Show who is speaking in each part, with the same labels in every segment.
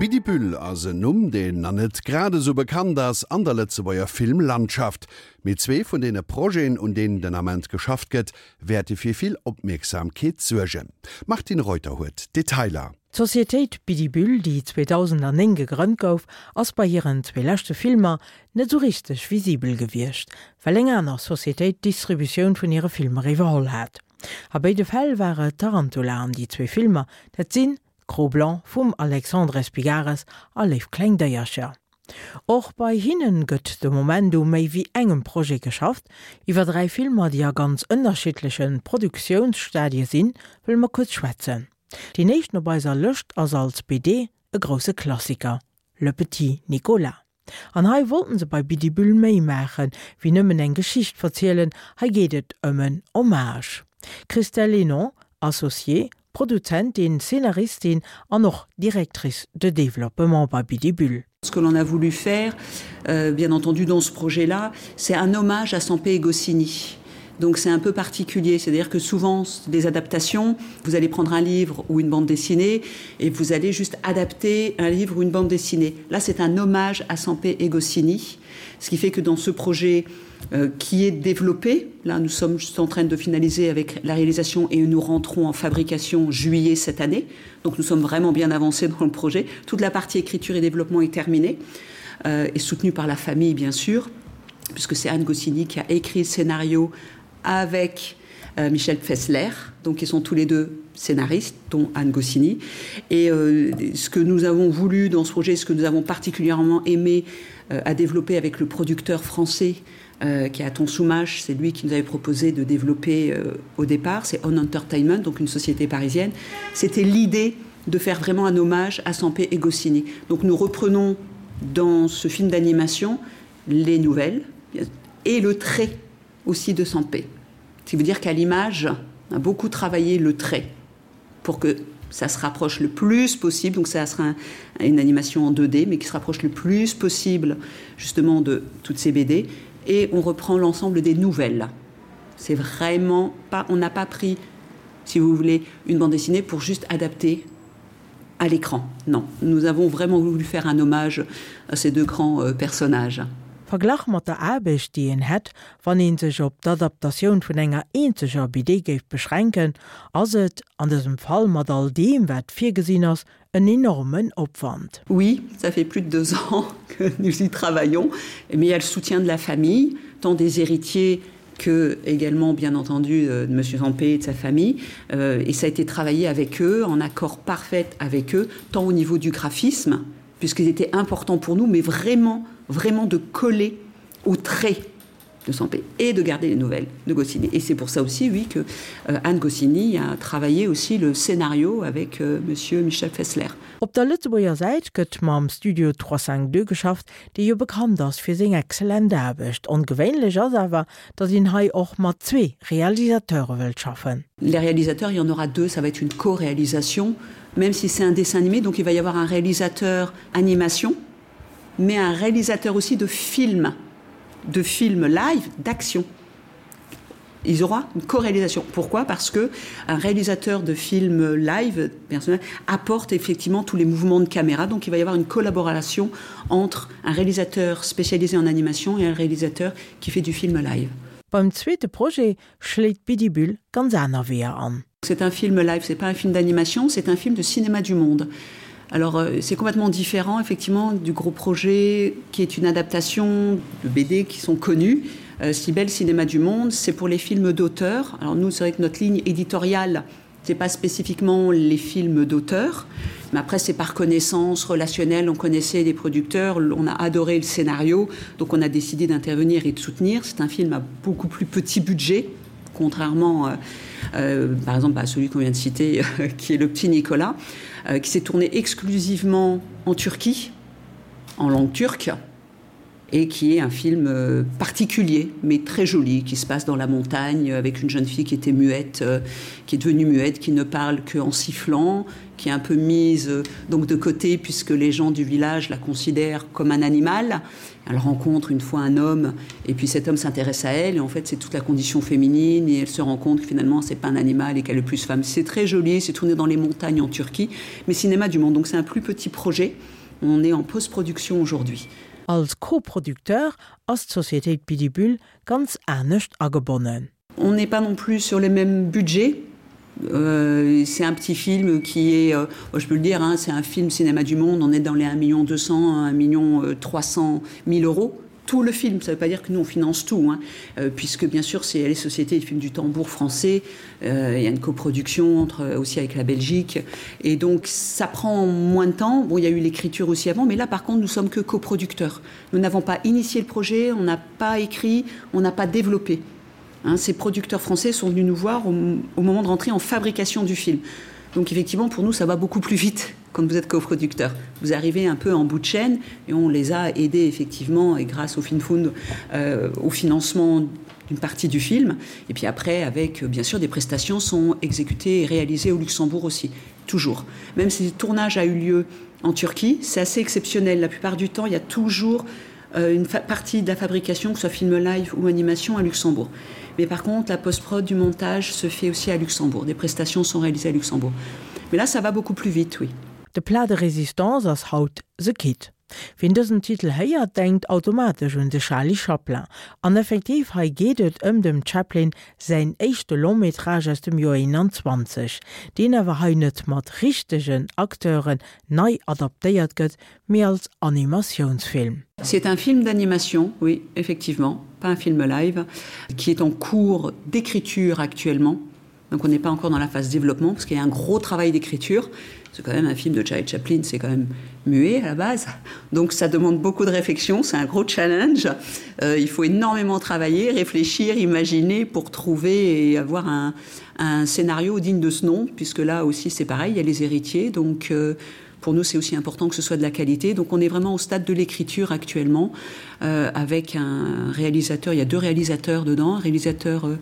Speaker 1: Bidibüll ass en Numm, deen nach net grad esou bekannt ass an der Lëtzebuerger Filmlandschaft. Mee zwee vun deene Projeten, un deenen den Ament geschafft gëtt, wäerte fir vill Opmierksamkeet suergen. D'Martine Reuter huet d'Detailer.
Speaker 2: D'Societéit Bidibüll, déi 2009 gegrënnt gouf, ass bei hiren zwee leschte Filmer net esou richteg visibel gewiescht, well eng aner Societéit d'Distributioun vun hire Filmer iwwerholl hat. A béide Fäll war et Tarantula an déi zwee Filmer, dat sinn Cro-Blanc vum Alexandre Espigares a Léif kleng Déiercher. Och bei hinnen gëtt de Moment u méi wéi engem Projet geschafft. Iwwer 3 Filmer, déi a ganz ënnerschiddleche Produktiounsstadie sinn, wëlle mer kuerz schwätzen. Deen éischten op eiser Lëscht ass als BD e grousse Klassiker, Le Petit Nicolas. An hei wollten se bei Bidibüll méi maachen, wéi nëmmen eng Geschicht verzielen, hei geet et ëm en Hommage. Christelle Hénon, Associée, Produzentin, Scénaristin an och Directrice de développement bei Bidibüll.
Speaker 3: Ce que l'on a voulu faire, euh, bien entendu dans ce projet-là, c'est un hommage à Sampé et Goscinny. Donc c'est un peu particulier, c'est-à-dire que souvent des adaptations, vous allez prendre un livre ou une bande dessinée et vous allez juste adapter un livre ou une bande dessinée. Là c'est un hommage à Sampé et Goscinny, ce qui fait que dans ce projet euh, qui est développé, là nous sommes juste en train de finaliser avec la réalisation et nous rentrons en fabrication juillet cette année. Donc nous sommes vraiment bien avancés dans le projet. Toute la partie écriture et développement est terminée euh, et soutenue par la famille bien sûr puisque c'est Anne Goscinny qui a écrit le scénario avec euh, Michel Fessler, donc ils sont tous les deux scénaristes, dont Anne Goscinny. Et euh, ce que nous avons voulu dans ce projet, ce que nous avons particulièrement aimé euh, à développer avec le producteur français euh, qui est Aton Soumache, c'est lui qui nous avait proposé de développer euh, au départ, c'est On Entertainment, donc une société parisienne. C'était l'idée de faire vraiment un hommage à Sampé et Goscinny. Donc nous reprenons dans ce film d'animation les nouvelles et le trait aussi de Sampé. Ce qui veut dire qu'à l'image, on a beaucoup travaillé le trait pour que ça se rapproche le plus possible donc ça sera un, une animation en 2D mais qui se rapproche le plus possible justement de toutes ces BD et on reprend l'ensemble des nouvelles. C'est vraiment pas on n'a pas pris si vous voulez une bande dessinée pour juste adapter à l'écran. Non, nous avons vraiment voulu faire un hommage à ces deux grands euh, personnages.
Speaker 2: Verglach mat der Aarbecht, déi een hätt, wann ee sech op d'Adaptatioun vun enger eenzeger BD géif beschränken, ass et, an dësem Fall mat all deem, wat virgesinn ass, en enormen Opwand.
Speaker 3: Oui, ça fait plus de deux ans que nous y travaillons, mais il y a le soutien de la famille, tant des héritiers que également bien entendu euh, de monsieur Zampé et de sa famille euh, et ça a été travaillé avec eux en accord parfait avec eux tant au niveau du graphisme puisqu'il était important pour nous mais vraiment vraiment de coller au trait de santé et de garder les nouvelles de Goscinny et c'est pour ça aussi oui que euh, Anne Goscinny a travaillé aussi le scénario avec euh, monsieur Michel Fessler.
Speaker 2: Op der Lëtzebuerger Säit gëtt mam Studio 352 geschafft, dee jo bekannt ass fir seng excellent Aarbecht. Ongewéinlech ass awer, datt een hei och mat zwee Realisateure wëllt schaffen.
Speaker 3: Les réalisateurs, il y en aura deux, ça va être une co-réalisation, même si c'est un dessin animé, donc il va y avoir un réalisateur animation, mais un réalisateur aussi de film, de film live d'action. Ils aura une co-réalisation. Pourquoi? Parce que un réalisateur de film live personnel apporte effectivement tous les mouvements de caméra. Donc il va y avoir une collaboration entre un réalisateur spécialisé en animation et un réalisateur qui fait du film live.
Speaker 2: Beim zweete Projet schléit Bidibüll ganz aner Weeër an.
Speaker 3: C'est un film live, c'est pas un film d'animation, c'est un film de cinéma du monde. Alors euh, c'est complètement différent effectivement du gros projet qui est une adaptation de BD qui sont connus. Euh, si belle cinéma du monde, c'est pour les films d'auteur. Alors nous c'est vrai que notre ligne éditoriale, c'est pas spécifiquement les films d'auteur, mais après c'est par connaissance relationnelle, on connaissait les producteurs, on a adoré le scénario, donc on a décidé d'intervenir et de soutenir. C'est un film à beaucoup plus petit budget contrairement euh, euh, par exemple à celui qu'on vient de citer euh, qui est le petit Nicolas euh, qui s'est tourné exclusivement en Turquie en langue turque. Et qui est un film euh, particulier, mais très joli, qui se passe dans la montagne avec une jeune fille qui était muette, euh, qui est devenue muette, qui ne parle qu'en sifflant, qui est un peu mise euh, donc de côté puisque les gens du village la considèrent comme un animal. Elle rencontre une fois un homme et puis cet homme s'intéresse à elle et en fait c'est toute la condition féminine et elle se rend compte que finalement c'est pas un animal et qu'elle est plus femme. C'est très joli, c'est tourné dans les montagnes en Turquie, mais cinéma du monde donc c'est un plus petit projet. On est en postproduction aujourd'hui.
Speaker 2: Als Coproducteur ass d'Sociétéit Bidibüll ganz anescht agebonnen.
Speaker 3: On n'est pas non plus sur les mêmes budgets. Euh, c'est un petit film qui est euh, je peux le dire c'est un film cinéma du monde on est dans les 1 million 200 1 million 300 000 euros tout le film ça veut pas dire que nous on finance tout hein, euh, puisque bien sûr c'est les sociétés du film du tambour français euh, il y a une coproduction entre euh, aussi avec la Belgique et donc ça prend moins de temps bon il y a eu l'écriture aussi avant mais là par contre nous sommes que coproducteurs nous n'avons pas initié le projet on n'a pas écrit on n'a pas développé hein, ces producteurs français sont venus nous voir au, au moment de rentrer en fabrication du film donc effectivement pour nous ça va beaucoup plus vite quand vous êtes coproducteur. Vous arrivez un peu en bout de chaîne et on les a aidés effectivement et grâce au FinFund euh, au financement d'une partie du film et puis après avec bien sûr des prestations sont exécutées et réalisées au Luxembourg aussi toujours. Même si le tournage a eu lieu en Turquie, c'est assez exceptionnel. La plupart du temps, il y a toujours euh, une partie de la fabrication, que ce soit film live ou animation à Luxembourg. Mais par contre, la postprod du montage se fait aussi à Luxembourg. Des prestations sont réalisées à Luxembourg. Mais là, ça va beaucoup plus vite, oui.
Speaker 2: De Plat de résistance ass haut The Kid. Wien dësen Titel héiert, denkt automatesch un de Charlie Chaplin. An effektiv, hei geet et ëm dem Chaplin säin éischte Long-métrage aus dem Joer 21, deen awer hei net mat richtegen Acteuren nei adaptéiert gëtt, mee als Animatiounsfilm.
Speaker 3: C'est un film d'animation, oui, effectivement, pas un film live, qui est en cours d'écriture actuellement. Donc on n'est pas encore dans la phase développement parce qu'il y a un gros travail d'écriture. C'est quand même un film de Charlie Chaplin, c'est quand même muet à la base. Donc ça demande beaucoup de réflexion, c'est un gros challenge. Euh, il faut énormément travailler, réfléchir, imaginer pour trouver et avoir un, un scénario digne de ce nom, puisque là aussi c'est pareil, il y a les héritiers. Donc euh, pour nous c'est aussi important que ce soit de la qualité. Donc on est vraiment au stade de l'écriture actuellement euh, avec un réalisateur, il y a deux réalisateurs dedans, un réalisateur euh,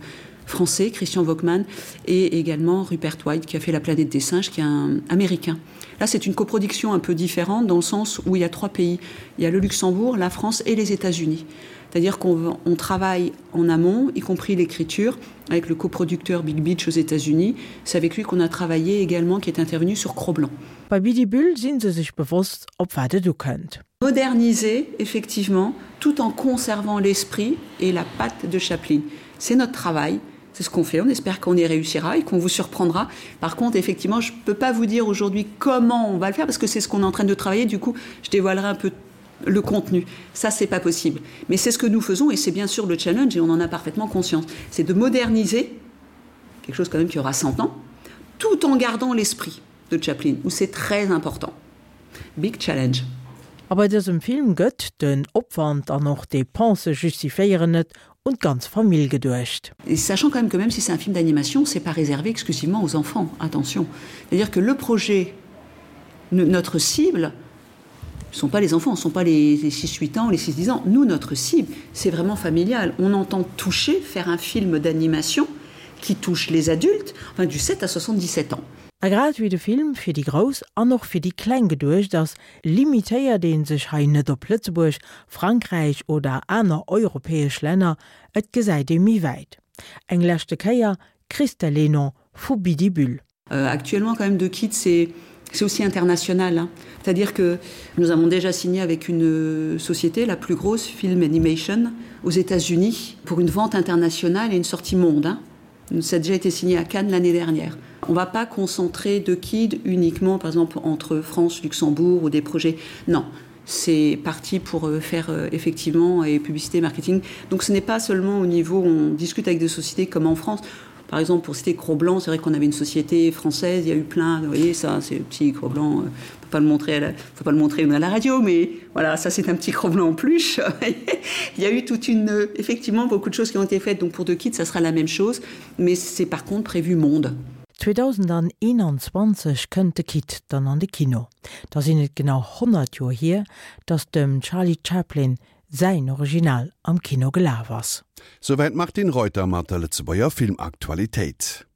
Speaker 3: français, Christian Vockmann, et également Rupert White qui a fait la planète des singes, qui est un américain. Là, c'est une coproduction un peu différente dans le sens où il y a trois pays. Il y a le Luxembourg, la France et les États-Unis. C'est-à-dire qu'on on travaille en amont, y compris l'écriture, avec le coproducteur Big Beach aux États-Unis. C'est avec lui qu'on a travaillé également, qui est intervenu sur Cro-Blanc.
Speaker 2: Bei Bidibüll si se sech bewosst, op wat et ukënnt.
Speaker 3: Moderniser, effectivement, tout en conservant l'esprit et la patte de Chaplin. C'est notre travail, c'est ce qu'on fait, on espère qu'on y réussira et qu'on vous surprendra. Par contre, effectivement, je ne peux pas vous dire aujourd'hui comment on va le faire parce que c'est ce qu'on est en train de travailler. Du coup, je dévoilerai un peu le contenu. Ça, c'est pas possible. Mais c'est ce que nous faisons et c'est bien sûr le challenge et on en a parfaitement conscience. C'est de moderniser quelque chose quand même qui aura 100 ans, tout en gardant l'esprit de Chaplin, où c'est très important. Big challenge.
Speaker 2: A bei dësem Film gëtt den Opwand an och d'Depensë justifiéieren et, un d'ganz Famill geduecht.
Speaker 3: Et sachant quand même que même si c'est un film d'animation, c'est pas réservé exclusivement aux enfants, attention. C'est-à-dire que le projet, notre cible, ne sont pas les enfants, ne sont pas les, les 6-8 ans, les 6-10 ans. Nous, notre cible, c'est vraiment familial. On entend toucher, faire un film d'animation qui touche les adultes, enfin du 7 à 77 ans.
Speaker 2: A grad wéi de Film fir déi Grouss an och fir déi Kleng geduecht ass, limitéiert ee sech hei net op Lëtzebuerg, Frankräich oder aner europäesch Länner, et gesäit ee méi wäit. Eng leschte Kéier, Christelle Lénon vu Bidibüll.
Speaker 3: Euh, actuellement quand même de kit c'est c'est aussi international hein. c'est à dire que nous avons déjà signé avec une euh, société la plus grosse film animation aux états unis pour une vente internationale et une sortie monde hein. ça a déjà été signé à cannes l'année dernière on va pas concentrer de kid uniquement par exemple entre france luxembourg ou des projets non c'est parti pour euh, faire euh, effectivement et publicité marketing donc ce n'est pas seulement au niveau où on discute avec des sociétés comme en france Par exemple, pour citer Cro-Blanc, c'est vrai qu'on avait une société française, il y a eu plein, vous voyez, ça, c'est le petit Cro-Blanc, euh, on peut pas le montrer à la, faut pas le montrer à la radio, mais voilà, ça c'est un petit Cro-Blanc en plus. il y a eu toute une, euh, effectivement, beaucoup de choses qui ont été faites, donc pour deux kits, ça sera la même chose, mais c'est par contre prévu monde.
Speaker 2: 2021 kënnt de Kit dann an de Kino. Da sinn et genau 100 Joer hier, datt dem Charlie Chaplin. säin Original am Kino gelaf ass.
Speaker 1: Souwäit d'Martine Reuter mat der Lëtzebuerger Filmaktualitéit.